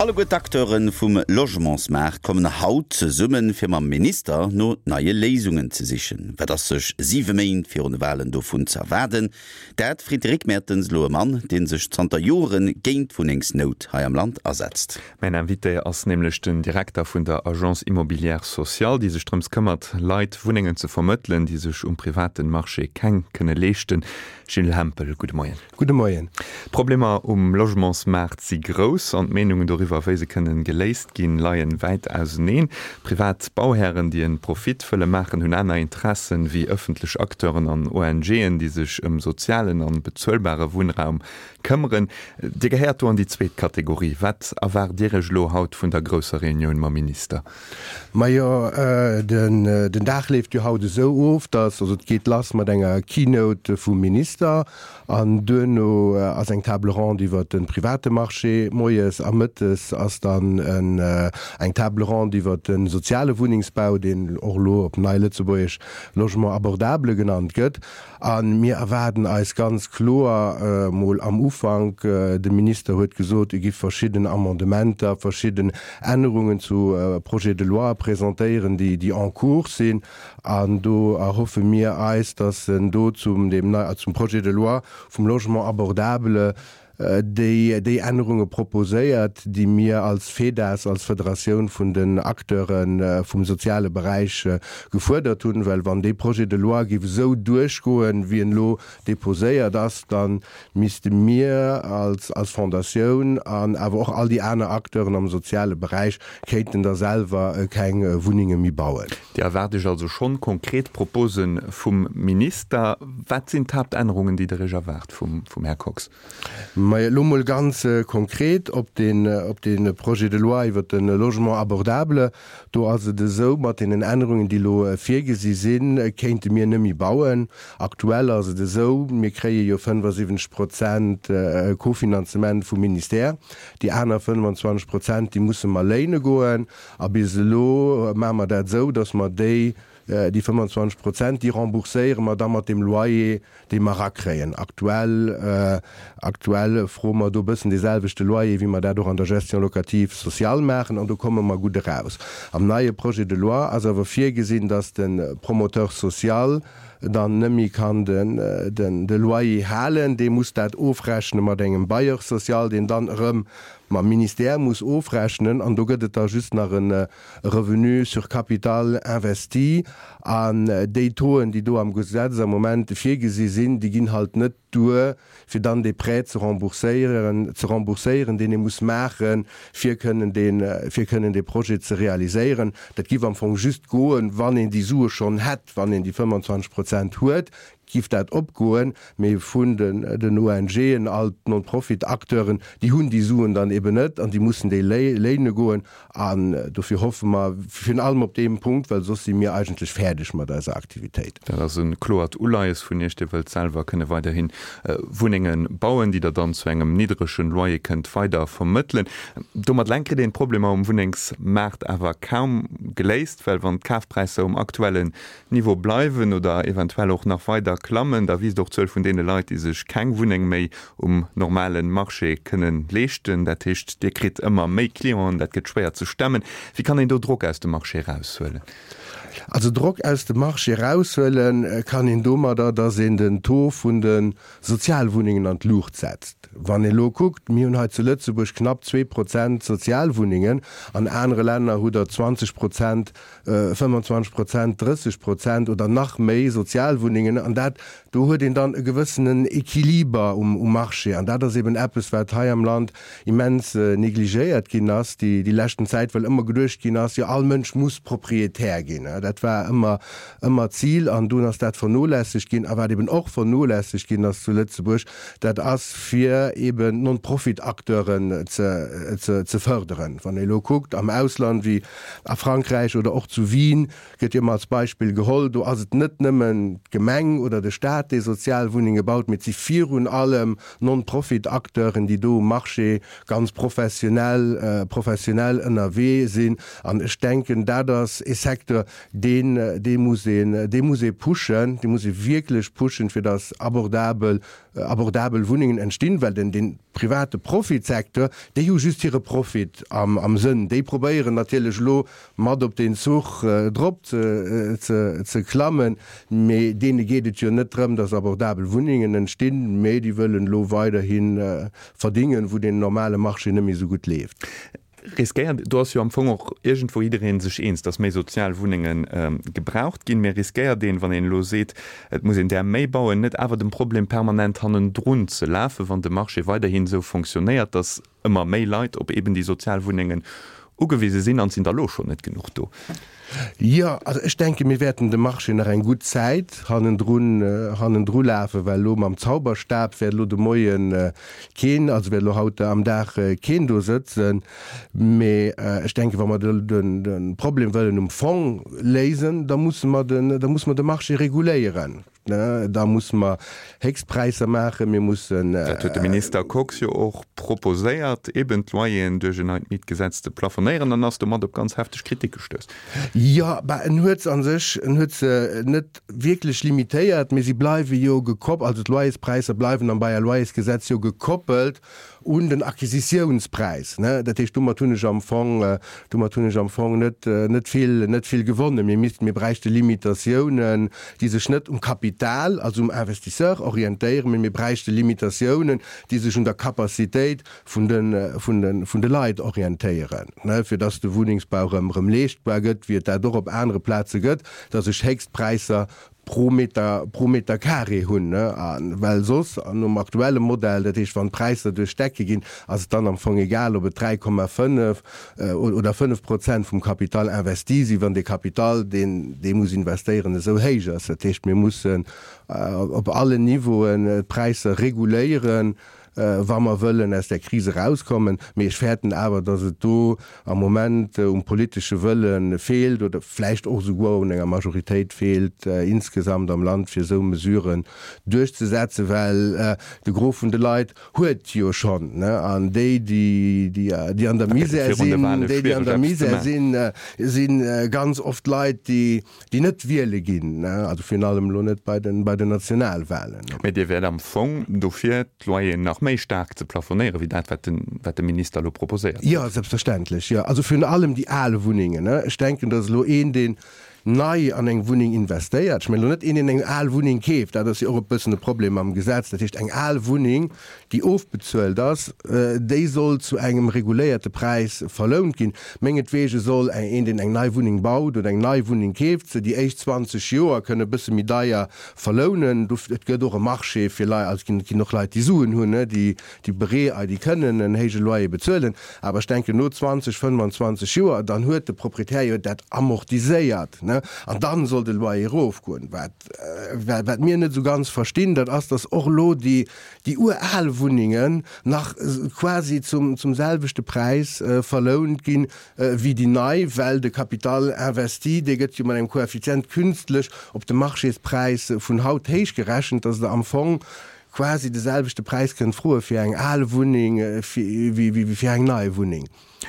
Alleguer d'Acteure vum Logementsmaart kommen haut zesummen, fir mam Minister no neie Léisungen ze sichen. Wat ass sech siwe Méint virun de Walen dovun ze erwaarden? Dat freet de Rick Mertens elo e Mann, dee sech zanter Jore géint d'Wunnengsnout hei am Land asetzt. Mäin Invité ass nämlech den Direkter vun der Agence Immobilière Sociale, déi sech drëms këmmert, Leit Wunnengen ze vermëttelen, déi sech um privaten Marché keng kënne leeschten. Gilles Hempel, gudde Moien. Gudde Moien. D'Problemer um Logementsmaart si grouss an d'Meenungen doriwwer, wéi se kënnen geléist ginn, leien wäit auseneen. Privat Bauhären, déi en Profit wëlle maachen, hunn aner Interessen wéi ëffentlech Acteuren an ONGen, déi sech ëm sozialen an bezuelbare Wunnraum këmmeren. Dir gehéiert do an déi zweet Kategorie. Wat erwaart Dir Iech elo haut vun der grousser Reunioun mam Minister? Majo, den Dag leeft jo haut esou of, dass, also et geet lass mat enger Keynote vum Minister an duerno ass eng Table ronde iwwert de private Marché moies a mëttes ass dann eng Table ronde iwwert de soziale Wunnengsbau, deen och elo op nei Lëtzebuergesch Logement abordable genannt gëtt. A mir erwaarden eis ganz kloer mol am Ufank, de Minister huet gesot, e giff verschidden Amendementer, verschidden Ännerungen zu Projets de loi presentéieren, déi déi en cours sinn. An do erhoffe mir eis, dass en do zum deem nei, zum Projet de loi vum Logement abordable déi déi Ännerunge proposéiert, déi mir als FEDAS, als Federatioun vun den Acteure vum soziale Beräich, gefuerdert hunn. Well wann dee Projet de loi géif esou duerchgoen, wéi en elo déposéiert ass, da misste mir als als Fondatioun an awer och all déi aner Acteuren am soziale Beräich kéinten da selwer keng Wunnenge méi bauen. Dir erwaart Iech also schonn konkret Propose vum Minister. Wat sinn d'Haaptännerungen, déi Der Iech erwaart vum Här Kox? Majo, elo mol ganz konkret op dee Projet de loi iwwert de Logement abordable. Do ass et esou, mat deenen Ännerungen, déi elo virgesi sinn, kéinte mir net méi bauen. Aktuell ass et esou, mir kréie jo 75 Prozent Kofinanzement vum Ministère. Déi aner 25 Prozent, déi musse mer léine goen. A bis elo maache mer dat esou, datt mer déi, déi 25 Prozent, déi rembourséiere mer da mat deem Loyer, dee mer erakréien. Aktuell, aktuell froe mer do e bëssen dee selwechte Loyer, wéi mer dat och an der Gestion locative sociale maachen, an do komme mer gutt eraus. Am neie Projet de loi ass awer virgesinn, datt de Promoteur social dann net méi kann de Loyer halen, dee muss dat ofrechne mat engem Bailleur social, deen dann erëm mam Ministère muss ofrechnen, an do gëtt et da just nach e Revenu sur capital investi. An déi Tauxen, déi do am Gesetz am Moment virgesi sinn, déi ginn halt net duer, fir dann dee Prêt ze rembourséieren, ze rembourséieren, deen ee muss maachen, fir kënnen dee, fir kënnen dee Projet ze realiséieren. Dat giff am Fong just goen, wann een déi Sue schonn hätt, wann een déi 25 Prozent huet, giff dat opgoen, mee vun den, den ONGen, all d'Non-Profit-Acteuren, déi hunn déi Suen dann eben net an déi mussen déi léine goen. An dofir hoffe mer virun allem op deem Punkt, well soss si mir eigentlech fäerdeg mat eiser Aktivitéit. Dat ass e kloert Uleies vun Iech. Dir wëllt selwer kënne weiderhi Wunnenge bauen, déi Der dann zu engem niddrege Loyer kënnt weider vermëttelen. Domat eleng kritt een d'Problemer um Wunnengsmaart awer kaum geléist, well wann d'Kafpräisser um aktuellen Niveau bleiwen oder eventuell och nach weider klammen, da wiisst och d'Zuel vun deene Leit, déi sech keng Wunneng méi um normale Marché kënnen leeschten. Dat heescht, Dir kritt ëmmer méi Clienten, dat gëtt schwéier ze stemmen. Wéi kann een do Drock aus dem Marché eraushuelen? Also Drock aus dem Marché eraushuele kann een domadder, datt een den Taux vun de Sozialwunnengen an d'Luucht setzt. Wann ee lo kuckt, mir hunn hei zu Lëtzebuerg knapp 2% Sozialwunnengen, an anere Länner hutt Der 20 Prozent 25 Prozent, 30 Prozent oder nach méi Sozialwunnengen an dat, do huet een dann e gewëssenen Equiliber um Marché an dat ass eben eppes, wat hei am Land immens negligéiert ginn ass déi déi leschten Zäit, well ëmmer geduecht ginn ass, jo all Mënsch muss Proprietär ginn. Dat war ëmmer ëmmer d'Zil an dunn ass dat vernolässegt ginn. A wat eben och vernolässegt ginn ass zu Lëtzebuerg, dat ass fir eben d'Non-Profit-Acteuren ze ze ze fërderen. Wann ee elo kuckt am Ausland, wéi A Frankräich oder och zu Wien gëtt jo ëmmer als Beispill geholl, do ass et net nëmmen d'Gemeng oder de Staat, dee Sozialwunnenge baut, mee et si virun allem Non-Profit-Acteuren, déi do um Marché ganz professionell professionell ënnerwee sinn. An ech denken, dat ass ee Secteur, Deen, dee muss een, dee muss ee pushen, dee muss ee wierklech pushen, fir datt abordabel, abordabel Wunnengen entstinn, well den, dee private Profitsecteur, déi hu just hire Profit am, am Sënn. Déi probéieren natierlech elo mat op deen Zuch drop ze, ze, ze klammen, mee deene geet et jo net drëm, datt abordabel Wunnengen entstinn, mee déi wëllen elo weiderhi verdingen, wou deen normale Marché net méi esou gutt leeft. Riskéiert, do ass jo am Fong och iergendwou jidderee sech eens, datt méi sozial Wunnenge gebraucht ginn, mä riskéiert een, wann een elo seet, et muss een där méi bauen, net awer dem Problem permanent hannendrun ze lafen, wann de Marché weiderhin esou fonctionnéiert, datt ëmmer méi Leit op eben déi sozial Wunnengen ugewise sinn, an et sinn der elo schonn net genuch do? Jo, also ech denke mir wäerten dem Marché nach eng gutt Zäit hannendrun, hannendru lafen, well elo mam Zauberstab wäert elo de Moie keen, also wäert elo haut am Dag keen do sëtzen. Mee ech denke wa mer de, de, de Problem wëllen um Fong léisen, da musse mer den, da musse mer de Marché reguléieren. Da musse mer Héchstpräisser maachen, mir mussen. Dat huet de Minister Kox jo och proposéiert, eben d'Loyeren duerch en neit Mietgesetz ze plafonéieren, an ass domat op ganz hefteg Kritik gestouss. Jo, bah, en huet se a sech, en huet se net wierklech limitéiert, mee si bleiwe jo gekopp, also d'Loyerspräisser bleiwen am Bail à loyers-Gesetz jo gekoppelt un den Acquisitiounspräis, ne? Dat heescht, domat hunn ech am Fong, domat hunn ech am Fong net, net vill, net vill gewonnen. Mir missten, mir bräichte Limitatiounen, déi sech net um Kapital, also um Investisseur orientéieren, mee mir bräichte Limitatiounen, déi sech un der Capacitéit vun de, vun de, vun de Leit orientéieren, ne, fir dass de Wunnengsbau erëm, erëm leeschtbar gëtt, wéi et dat och op anere Plaze gëtt, dass ech Héchstpräisser pro Meter, pro Meter carré hunn, ne, a well soss, an nom aktuelle Modell, dat heescht wann d'Präisser duerch d'Decke ginn, ass et dann am Fong egal, ob et 3,5 oder 5 Prozent vum Capital investi sinn, wann dee Capital, deen dee muss investéieren, esou héich ass. Dat heescht, mir mussen op allen Niveauen d'Präisser reguléieren, wa mer wëllen aus där Kris erauskommen. Mee ech fäerten awer, datt et do am Moment um politesche Wëlle feelt oder vläicht och esouguer un enger Majoritéit feelt insgesamt am Land, fir esou Mesuren duerchzesetzen, well de Gros vun de Leit huet jo schonn. An déi, déi an der Misär sinn, déi, déi an der Misär sinn, si ganz oft Leit, déi déi net wiele ginn, also virun allem elo net bei den, bei den Nationalwahlen. Mä Dir wäert am Fong dofir, d'Loyeren nach méi staark ze plafonéieren, wéi dat, wat den, wat de Minister elo proposéiert huet. Jo, selbstverständlech, jo. Also virun allem déi al Wunnengen. Ech denken, datt elo een, deen nei an eng Wunneng investéiert, ech mengen elo net een, deen eng al Wunneng keeft, dat ass jo och e bëssen e Problem am Gesetz, dat heescht eng al Wunneng, déi ofbezuelt ass, déi soll zu engem reguléierte Präis verlount ginn. Mengetweege soll een, deen eng nei Wunneng baut oder eng nei Wunneng keeft, se déi éischt 20 Joer kënne e bësse méi deier verlounen. Et gëtt och e Marché fir Leit, also et ginn och Leit, déi Suen hunn, déi beree, déi kënnen en héije Loyer bezuelen. Awer ech denken, no 20, 25 Joer, dann huet de Proprietär jo dat amortiséiert, an dann soll de Loyer erofgoen. Wat mir net esou ganz verstinn, dat ass, datt och elo déi déi ural Wunnengen nach quasi zum zum selwechte Präis verlount ginn wéi déi nei, well de Capital investi, dee gëtt jo mat engem Koeffizient künstlech op de Marchéspräis vun haut héich gerechent, dass Der am Fong quasi de selwechte Präis kënnt froe fir eng al Wunneng wéi fir eng nei Wunneng.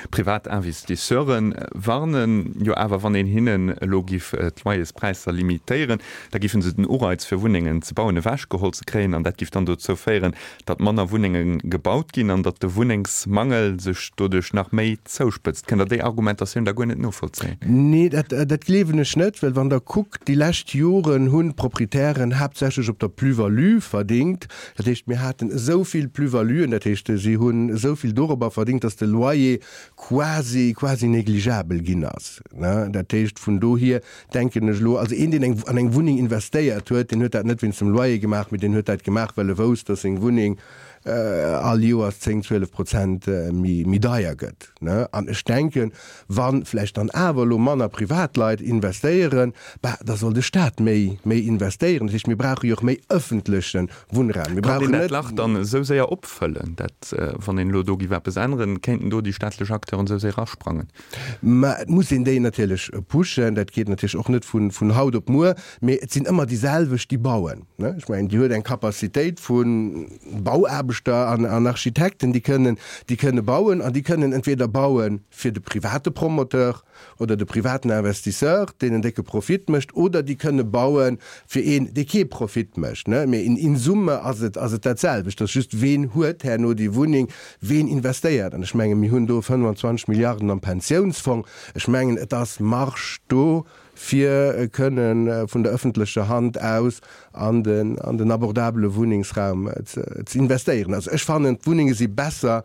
Privat Investisseure warnen jo awer, wann een hinnen elo giff d'Loyerspräisser limitéieren, da giffen se den Ureiz fir Wunnengen ze bauen ewechgeholl ze kréien an dat giff dann dozou féieren, datt manner Wunnenge gebaut ginn an datt de Wunnengsmangel sech doduerch nach méi zouspëtzt. Kënnt Der déi Argumentatioun da guer net novollzéien? Nee, dat dat gleewen ech net, well wann Der kuckt, déi lescht Joren hunn d'Proprietären haaptsächlech op der Plus-value verdingt. Dat heescht, mir haten esou vill Plus-valuen, dat heescht, si hunn esou vill dorobber verdingt, datt de Loyer quasi, quasi négligeabel ginn ass. Dat heescht, vun dohier denken ech elo, also een, deen eng, an eng Wunneng investéiert huet, deen huet dat net wéinst dem Loyer gemaach, mee deen huet dat gemaach, well e wousst, datt seng Wunneng all Joers 10, 12 Prozent méi, méi deier gëtt. An ech denken, wa vläicht dann awer elo manner Privatleit investéieren, bah, da soll de Staat méi, méi investéieren. Dat heescht, mir brauche jo och méi ëffentleche Wunnraum. Mir Kann een brauchen dat net. Lach dann esou séier opfëllen, dat, wann een elo do giff eppes änneren, kéinten do déi staatlech Acteuren esou séier asprangen? Mä et muss een déi natierlech pushen. Dat geet natierlech och net vun, vun haut op muer. Mee et sinn ëmmer déi selwecht, déi bauen. Ech mengen, Dir huet eng Capacitéit vu Bauaarbechter. Bauaarbechter an Architekten, déi kënnen, déi kënne bauen an déi kënnen entweder baue fir de private Promoteur oder de privaten Investisseur, deen en décke Profit mécht, oder déi kënne baue fir een, dee kee Profit mécht. Mee in summe ass et, ass et dat selwecht. Et ass just, ween huet herno déi Wunneng, ween investéiert. An ech menge mir hunn do 25 Milliarden am Pensiounsfong. Ech mengen, et ass Marge do, fir kënne vun der öffentlecher Hand aus an den, an den abordabele Wunnengsraum ze investéieren. Also ech fannen, d'Wunnenge si besser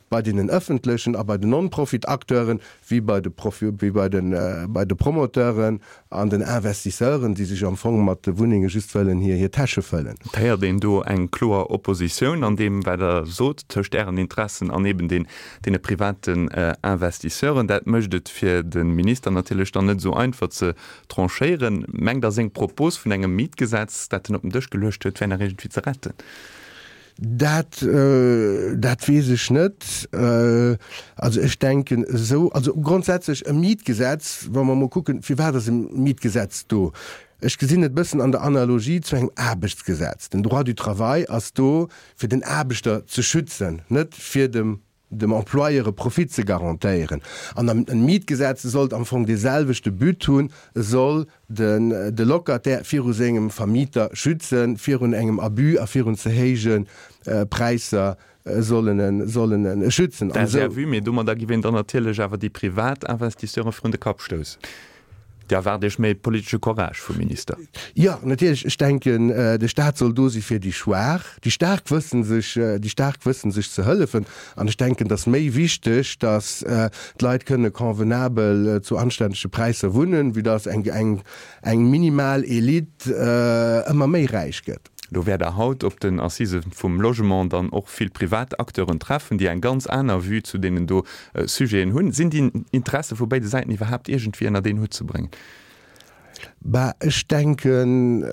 bei deenen öffentlechen a bei den Non-Profit-Acteuren wéi bei de Profi, wéi bei den, bei de Promoteuren an den Investisseuren, déi sech am Fong mat de Wunnenge just wëllen hir, hir Täsche fëllen. Et héiert een do eng kloer Oppositioun an deem, wat Der sot, tëscht Ären Interessen an eben den, deene privaten Investisseuren. Dat mécht et fir de Minister natierlech dann net esou einfach ze tranchéieren. Mengt Der, seng Propos vun engem Mietgesetz, dat en op den Dësch geluecht huet, wär nach iergendwéi ze retten? Dat, dat weess ech net. Also ech denken esou, also grondsätzlech e Mietgesetz, wa mer emol kucken, firwat ass e Mietgesetz do? Ech gesinn et e bëssen an der Analogie zu engem Aarbechtsgesetz. Den Droit du travail ass do, fir den Aarbechter ze schützen, net fir dem dem Employeur e Profit ze garantéieren. An e Mietgesetz sollt am Fong dee selwechte But hunn, e soll den de Locataire viru sengem Vermieter schützen, virun engem Abus a virun ze héije Präisser sollen en sollen en schützen. Dat ass Är Vue, mee domadder giff een dann natierlech awer déi privat Investisseuren virun de Kapp stoussen. Dir erwaart Iech méi politesche Courage vum Minister? Jo, natierlech. Ech denken, de Staat soll do si fir déi Schwaach. Déi Staark wëssen sech, déi Staark wëssen sech ze hëllefen. An ech denken, et ass méi wichteg, datt d'Leit kënne convenabel zu anständege Präisser wunnen, wéi datt eng, eng, eng minimal Elite ëmmer méi räich gëtt. Do wäert Der haut op den Assisë vum Logement dann och vill privat Acteuren treffen, déi eng ganz aner Vue zu deenen do Sujeten hunn. Sinn déi Interesse vu béide Säiten iwwerhaapt iergendwéi ënnert een Hutt ze bréngen? Bah, ech denken,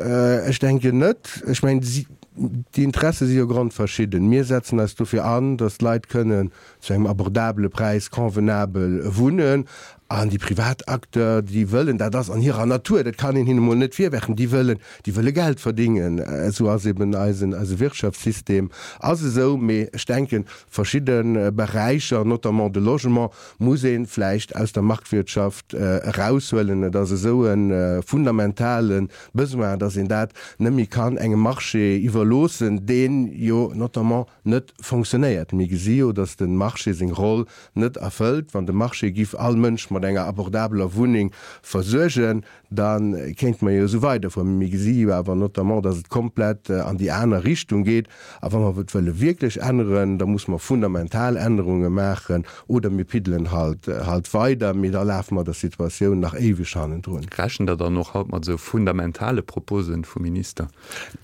ech denken net. Ech mengen, déi Interesse si jo grondverschidden. Mir setzen eis dofir an, datt d'Leit kënnen zu engem abordabele Präis convenabel wunnen. An déi privat Acteurs, déi wëllen, dat ass an hirer Natur, dat kann een hinne mol net virwerfen, déi wëllen, déi wëlle Geld verdingen. Esou ass eben eisen, eise Wirtschaftssystem ass esou. Mee ech denken, verschidde Beräicher, notamment de Logement, muss ee vläicht aus der Marktwirtschaft eraushuelen. Et ass esou e fundamentale Besoin, datt een dat net méi kann engem Marché iwwerloossen, deen jo notamment net fonctionnéiert. Mir gesi jo, datt de Marché seng Roll net erfëllt. Wann de Marché giff all Mënsch mat enger abordabeler Wunneng versuergen, da kéinte mer jo esou weiderfueren. Mee mir gesi jo awer notamment, datt et komplett an déi aner Richtung geet. A wa mer et wëlle wierklech änneren, da musse mer fundamental Ännerunge maachen oder mir piddelen halt halt weider, mee da lafe mer der Situatioun nach éiweg hannendrun. Rechent Der dann och haut mat esou fundamentale Proposen vum Minister?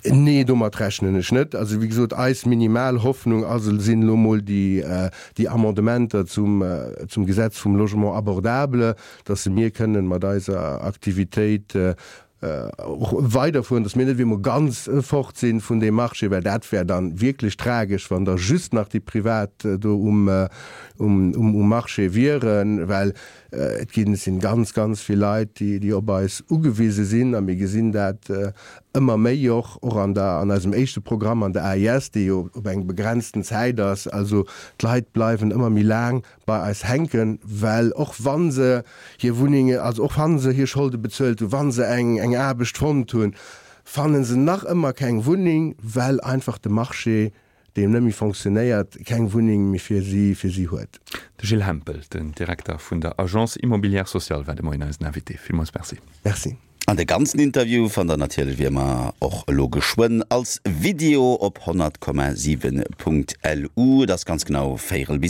Nee, domat rechnen ech net. Also wéi gesot, eis minimal Hoffnung ass, sinn elo mol déi, déi Amendementer zum, zum Gesetz vum Logement abordable, dass se mir kënnen mat eiser Aktivitéit och weiderfueren, dass mir net ewéi emol ganz fort sinn vun deem Marché, well dat wär dann wierklech tragesch, wann da just nach déi Privat do um, um, um Marché wieren, well Et ginn, sinn ganz, ganz vill Leit, déi, déi op eis ugewise sinn a mir gesinn dat ëmmer méi och, och an der, an eisem éischte Programm an der AIS, dee jo op eng begrenzten Zäit ass. Also d'Leit bleiwen ëmmer méi laang bei eis hänken, well och wa se hir Wunnenge, also och wa se hir Scholde bezuelt hunn, wa se eng, eng Aarbecht fonnt hunn, fanne se nach ëmmer keng Wunneng, well einfach de Marché deem net méi fonctionnéiert, keng Wunneng méi fir si fir si huet. De Gilles Hempel, den Direkter vun der Agence Immobilière Sociale, war de Moien eisen Invité. Villmools Merci. Merci. An de ganzen Interview fannt der natierlech wéi ëmmer och elo geschwënn als Video op 100,7.lu. Et ass ganz genau véierel bis.